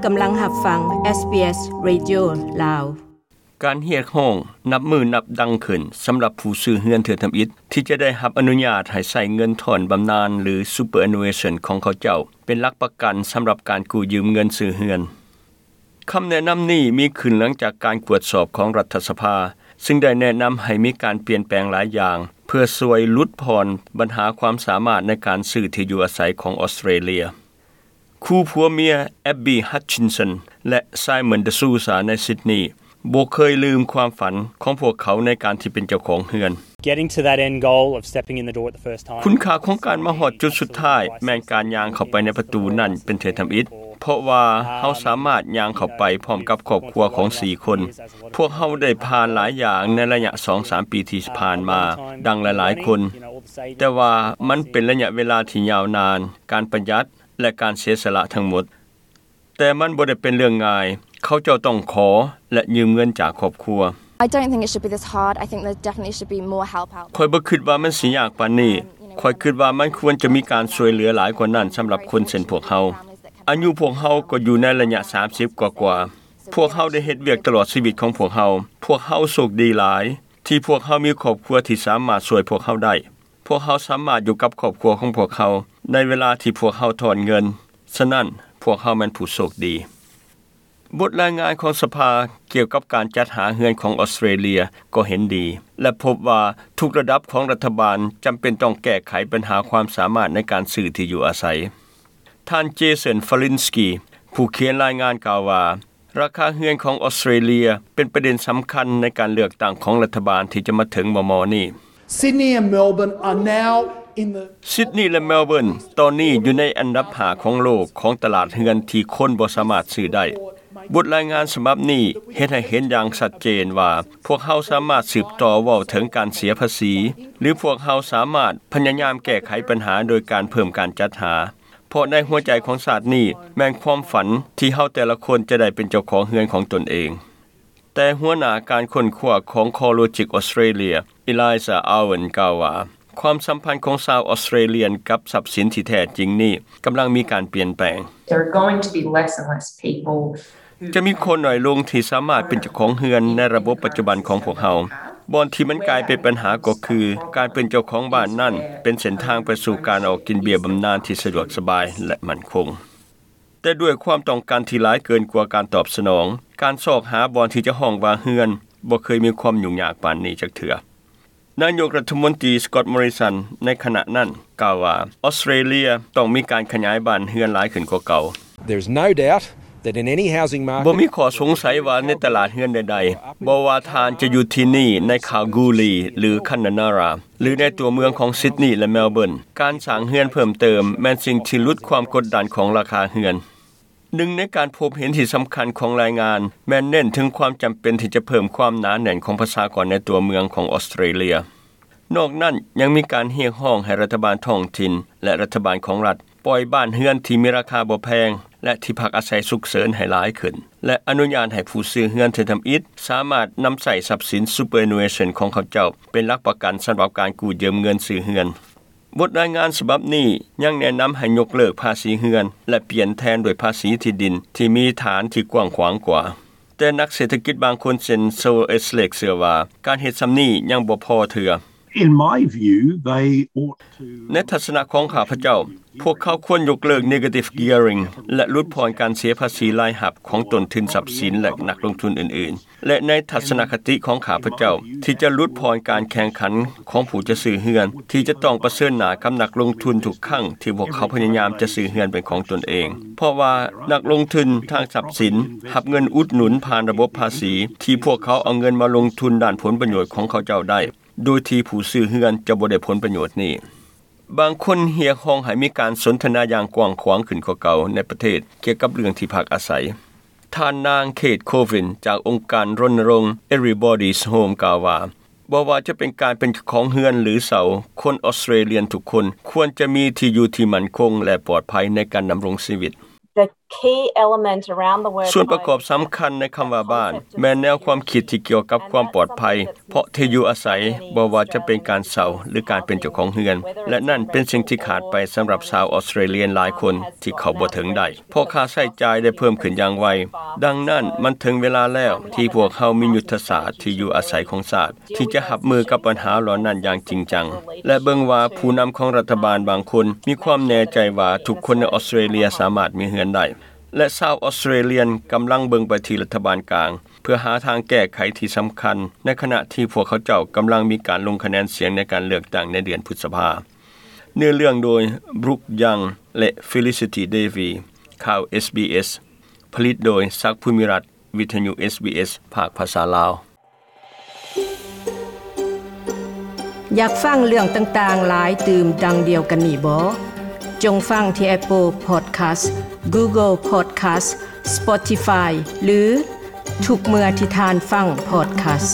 ກຳລັງຮັບຟັງ ເອສບີເອສ ເຣດິໂອ ລາວ. ການຮຽກຮ້ອງນັບມື້ນັບດັງຂຶ້ນສຳລັບຜູ້ຊື້ເຮືອນເທື່ອທຳອິດ ທີ່ຈະໄດ້ຮັບອະນຸຍາດໃຫ້ໃຊ້ເງິນທອນບຳນານ ຫຼື superannuation ຂອງເຂົາເຈົ້າ ເປັນຫຼັກປະກັນສຳລັບການກູ້ຢືມເງິນຊື້ເຮືອນ. ຄຳແນະນຳນີ້ມີຂຶ້ນຫຼັງຈາກການກວດສອບຂອງລັດຖະສະພາ, ຊຶ່ງໄດ້ແນະນຳໃຫ້ມີການປ່ຽນແປງຫຼາຍຢ່າງ ເພື່ອຊ່ວຍຫຼຸດຜ່ອນບັນຫາຄວາມສາມາດໃນການຊື້ທີ່ຢູ່ອາໄສຂອງອອສເຕຣເລຍ. ຄູ່ຜົວເມຍ Abby Hutchinson ແລະ Simon De Souza ໃນຊິດນີ ບໍ່ເຄີຍລືມຄວາມຝັນຂອງພວກເຂົາໃນການທີ່ເປັນເຈົ້າຂອງເຮືອນ. Getting to that end goal of stepping in the door at the first time. ຄຸນຄ່າຂອງການມາຮອດຈຸດສຸດທ້າຍ ແມ່ນການຍ່າງເຂົ້າໄປໃນປະຕູນັ້ນເປັນເທື່ອທຳອິດ, ເພາະວ່າເຮົາສາມາດຍ່າງເຂົ້າໄປພ້ອມກັບຄອບຄົວຂອງສີ່ຄົນ. ພວກເຮົາໄດ້ຜ່ານຫຼາຍຢ່າງໃນໄລຍະສອງສາມປີທີ່ຜ່ານມາ ດັ່ງຫຼາຍໆຄົນ, ແຕ່ວ່າມັນເປັນໄລຍະເວລາທີ່ຍາວນານ, ການປະຢັດ ແລະ ການເສຍສະຫຼະທັງໝົດ. ແຕ່ມັນບໍ່ໄດ້ເປັນເລື່ອງງ່າຍ. ເຂົາເຈົ້າຕ້ອງຂໍ ແລະ ຢືມເງິນຈາກຄອບຄົວ. I don't think it should be this hard. I think there definitely should be more help out. ຂ້ອຍບໍ່ຄິດວ່າມັນຊິຍາກປານນີ້. ຂ້ອຍຄິດວ່າມັນຄວນຈະມີການຊ່ວຍເຫຼືອຫຼາຍກວ່ານັ້ນສຳລັບຄົນເຊັ່ນພວກເຮົາ. ອາຍຸພວກເຮົາກໍຢູ່ໃນໄລຍະສາມສິບກວ່າໆ. ພວກເຮົາໄດ້ເຮັດວຽກຕະຫຼອດຊີວິດຂອງພວກເຮົາ. ພວກເຮົາໂຊກດີຫຼາຍ ທີ່ພວກເຮົາມີຄອບຄົວທີ່ສາມາດຊ່ວຍພວກເຮົາໄດ້. ພວກເຮົາສາມາດຢູ່ກັບຄອບຄົວຂອງພວກເຮົາໃນເວລາທີ່ພວກເຮົາຖອນເງິນ. ສະນັ້ນ, ພວກເຮົາແມ່ນຜູ້ໂຊກດີ. ບົດລາຍງານຂອງສະພາກ່ຽວກັບການຈັດຫາເຮືອນຂອງອອສເຕຣເລຍກໍເຫັນດີ ແລະ ພົບວ່າທຸກລະດັບຂອງລັດຖະບານຈຳເປັນຕ້ອງແກ້ໄຂບັນຫາຄວາມສາມາດໃນການຊື້ທີ່ຢູ່ອາໄສ. ທ່ານ Jason Falinski ຜູ້ຂຽນລາຍງານກ່າວວ່າ, ລາຄາເຮືອນຂອງອອສເຕຣເລຍເປັນປະເດັນສຳຄັນໃນການເລືອກຕັ້ງຂອງລັດຖະບານທີ່ຈະມາເຖິງມໍ່ໆນີ້. Sydney and Melbourne are now in the ຊິດນີ ແລະ ເມລເບີນ ຕອນນີ້ຢູ່ໃນອັນດັບຫ້າຂອງໂລກຂອງຕະຫຼາດເຮືອນທີ່ຄົນບໍ່ສາມາດຊື້ໄດ້. ບົດລາຍງານສະບັບນີ້ເຮັດໃຫ້ເຫັນຢ່າງຊັດເຈນວ່າ ພວກເຮົາສາມາດສືບຕໍ່ເວົ້າເຖິງການເສຍພາສີ ຫຼື ພວກເຮົາສາມາດພະຍາຍາມແກ້ໄຂບັນຫາໂດຍການເພີ່ມການຈັດຫາ. ເພາະໃນຫົວໃຈຂອງຊາດນີ້ແມ່ນຄວາມຝັນທີ່ເຮົາແຕ່ລະຄົນຈະໄດ້ເປັນເຈົ້າຂອງເຮືອນຂອງຕົນເອງ. ແຕ່ຫົວໜ້າການຄົ້ນຄວ້າຂອງ CoreLogic Australia, Eliza Owen ກ່າວວ່າ, ຄວາມສຳພັນຂອງຊາວອອສເຕຣເລຍນກັບຊັບສິນທີ່ແທ້ຈິງນີ້ກຳລັງມີການປ່ຽນແປງ. There are going to be less and less people ຈະມີຄົນໜ້ອຍລົງທີ່ສາມາດເປັນເຈົ້າຂອງເຮືອນໃນລະບົບປັດຈຸບັນຂອງພວກເຮົາ. ບ່ອນທີ່ມັນກາຍເປັນບັນຫາກໍຄື ການເປັນເຈົ້າຂອງບ້ານນັ້ນເປັນເສັ້ນທາງໄປສູ່ການອອກກິນເບ້ຍບຳນານທີ່ສະດວກສະບາຍ ແລະ ໝັ້ນຄົງ. ແຕ່ດ້ວຍຄວາມຕ້ອງການທີ່ຫຼາຍເກີນກວ່າການຕອບສະໜອງ, ການຊອກຫາບ່ອນທີ່ຈະຮ້ອງວ່າເຮືອນບໍ່ເຄີຍມີຄວາມຫຍຸ້ງຍາກປານນີ້ຈັກເທື່ອ. ນາຍົກລັດຖະມົນຕີ Scott Morrison ໃນຂະນະນັ້ນກ່າວວ່າ ອອສເຕຣເລຍຕ້ອງມີການຂະຫຍາຍບ້ານເຮືອນຫຼາຍຂຶ້ນກວ່າເກົ່າ. There is no doubt that in any housing market ບໍ່ມີຂໍ້ສົງໄສວ່າໃນຕະຫຼາດເຮືອນໃດໆ, ບໍ່ວ່າທ່ານຈະຢູ່ທີ່ນີ້ໃນຄາລກູລີ ຫຼື ຄານນານາຣາ ຫຼື ໃນຕົວເມືອງຂອງຊິດນີ ແລະ ເມລເບີນ, ການສ້າງເຮືອນເພີ່ມເຕີມແມ່ນສິ່ງທີ່ຫຼຸດຄວາມກົດດັນຂອງລາຄາເຮືອນ. ໜຶ່ງໃນການພົບເຫັນທີ່ສຳຄັນຂອງລາຍງານ ແມ່ນເນັ້ນເຖິງຄວາມຈຳເປັນທີ່ຈະເພີ່ມຄວາມໜາແໜ້ນຂອງປະຊາກອນໃນຕົວເມືອງຂອງອອສເຕຣເລຍ. ນອກນັ້ນຍັງມີການຮຽກຮ້ອງໃຫ້ລັດຖະບານທ້ອງຖິ່ນ ແລະ ລັດຖະບານຂອງລັດ ປ່ອຍບ້ານເຮືອນທີ່ມີລາຄາບໍ່ແພງ ແລະ ທີ່ພັກອາໄສສຸກເສີນໃຫ້ຫຼາຍຂຶ້ນ ແລະ ອະນຸຍາດໃຫ້ຜູ້ຊື້ເຮືອນເທື່ອທຳອິດສາມາດນຳໃຊ້ຊັບສິນ superannuation ຂອງເຂົາເຈົ້າເປັນຫຼັກປະກັນສຳລັບການກູ້ຢືມເງິນຊື້ເຮືອນ. ບົດລາຍງານສະບັບນີ້ຍັງແນະນຳໃຫ້ຍົກເລີກພາສີເຮືອນ ແລະ ປ່ຽນແທນດ້ວຍພາສີທີ່ດິນທີ່ມີຖານທີ່ກວ້າງຂວາງກວ່າ. ແຕ່ນັກເສດຖະກິດບາງຄົນເຊັ່ນ Saul Eslake ເຊື່ອວ່າການເຮັດສ່ຳນີ້ຍັງບໍ່ພໍເທື່ອ. In my view, they ought to ໃນທັດສະນະຂອງຂ້າພະເຈົ້າ, ພວກເຂົາຄວນຍົກເລີກ negative gearing ແລະ ຫຼຸດຜ່ອນການເສຍພາສີລາຍຮັບຂອງຕົ້ນທຶນຊັບສິນ ແລະ ນັກລົງທຶນອື່ນໆ. ແລະ ໃນທັດສະນະຄະຕິຂອງຂ້າພະເຈົ້າ ທີ່ຈະຫຼຸດຜ່ອນການແຂ່ງຂັນຂອງຜູ້ຈະຊື້ເຮືອນ ທີ່ຈະຕ້ອງປະເຊີນໜ້າກັບນັກລົງທຶນທຸກຄັ້ງທີ່ພວກເຂົາພະຍາຍາມຈະຊື້ເຮືອນເປັນຂອງຕົນເອງ, ເພາະວ່ານັກລົງທຶນທາງຊັບສິນຮັບເງິນອຸດໜູນຜ່ານລະບົບພາສີ ທີ່ພວກເຂົາເອົາເງິນມາລົງທຶນດ້ານຜົນປະໂຫຍດຂອງເຂົາເຈົ້າໄດ້, ໂດຍທີ່ຜູ້ຊື້ເຮືອນຈະບໍ່ໄດ້ຜົນປະໂຫຍດນີ້. ບາງຄົນຮຽກຮ້ອງໃຫ້ມີການສົນທະນາຢ່າງກວ້າງຂວາງຂຶ້ນກວ່າເກົ່າໃນປະເທດກ່ຽວກັບເລື່ອງທີ່ພັກອາໄສ. ທ່ານນາງ Kate Colvin ຈາກອົງການລົນນະລົງ Everybody's Home ກ່າວວ່າ, ບໍ່ວ່າຈະເປັນການເປັນເຈົ້າຂອງເຮືອນ ຫຼື ເຊົ່າ, ຄົນອອສເຕຣເລຍນທຸກຄົນຄວນຈະມີທີ່ຢູ່ທີ່ໝັ້ນຄົງ ແລະ ປອດໄພໃນການດຳລົງຊີວິດ. That key element around the word ສ່ວນປະກອບສຳຄັນໃນຄຳວ່າບ້ານ ແມ່ນແນວຄວາມຄິດທີ່ກ່ຽວກັບຄວາມປອດໄພ ເພາະທີ່ຢູ່ອາໄສ ບໍ່ວ່າຈະເປັນການເຊົ່າ ຫຼື ການເປັນເຈົ້າຂອງເຮືອນ ແລະ ນັ້ນເປັນສິ່ງທີ່ຂາດໄປສຳລັບຊາວອອສເຕຣເລຍຫຼາຍຄົນທີ່ເຂົ້າບໍ່ເຖິງໄດ້ ເພາະຄ່າໃຊ້ຈ່າຍໄດ້ເພີ່ມຂຶ້ນຢ່າງໄວ. ດັ່ງນັ້ນ, ມັນເຖິງເວລາແລ້ວທີ່ພວກເຮົາມີຍຸດທະສາດທີ່ຢູ່ອາໄສຂອງຊາດ ທີ່ຈະຮັບມືກັບບັນຫາເຫຼົ່ານັ້ນຢ່າງຈິງຈັງ ແລະ ເບິ່ງວ່າຜູ້ນຳຂອງລັດຖະບານບາງຄົນມີຄວາມແນ່ໃຈວ່າທຸກຄົນໃນອອສເຕຣເລຍສາມາດມີເຮືອນໄດ້ ແລະ ຊາວອອສເຕຣເລຍກຳລັງເບິ່ງໄປທີ່ລັດຖະບານກາງ ເພື່ອຫາທາງແກ້ໄຂທີ່ສຳຄັນ ໃນຂະນະທີ່ພວກເຂົາເຈົ້າກຳລັງມີການລົງຄະແນນສຽງໃນການເລືອກຕັ້ງໃນເດືອນພຶດສະພາ. ເນື້ອເລື່ອງໂດຍ Brooke Young ແລະ Felicity Davie. ຂ່າວ SBS ຜະລິດໂດຍ ສັກ ພູມິລັດ, ວິທະຍຸ SBS ພາກພາສາລາວ. ຢາກຟັງເລື່ອງຕ່າງໆຫຼາຍຕື່ມດັ່ງດຽວກັນນີ້ບໍ? ຈົ່ງຟັງທີ່ Apple Podcast, Google Podcast, Spotify ຫຼື ທຸກເມື່ອທີ່ທ່ານຟັງ podcast.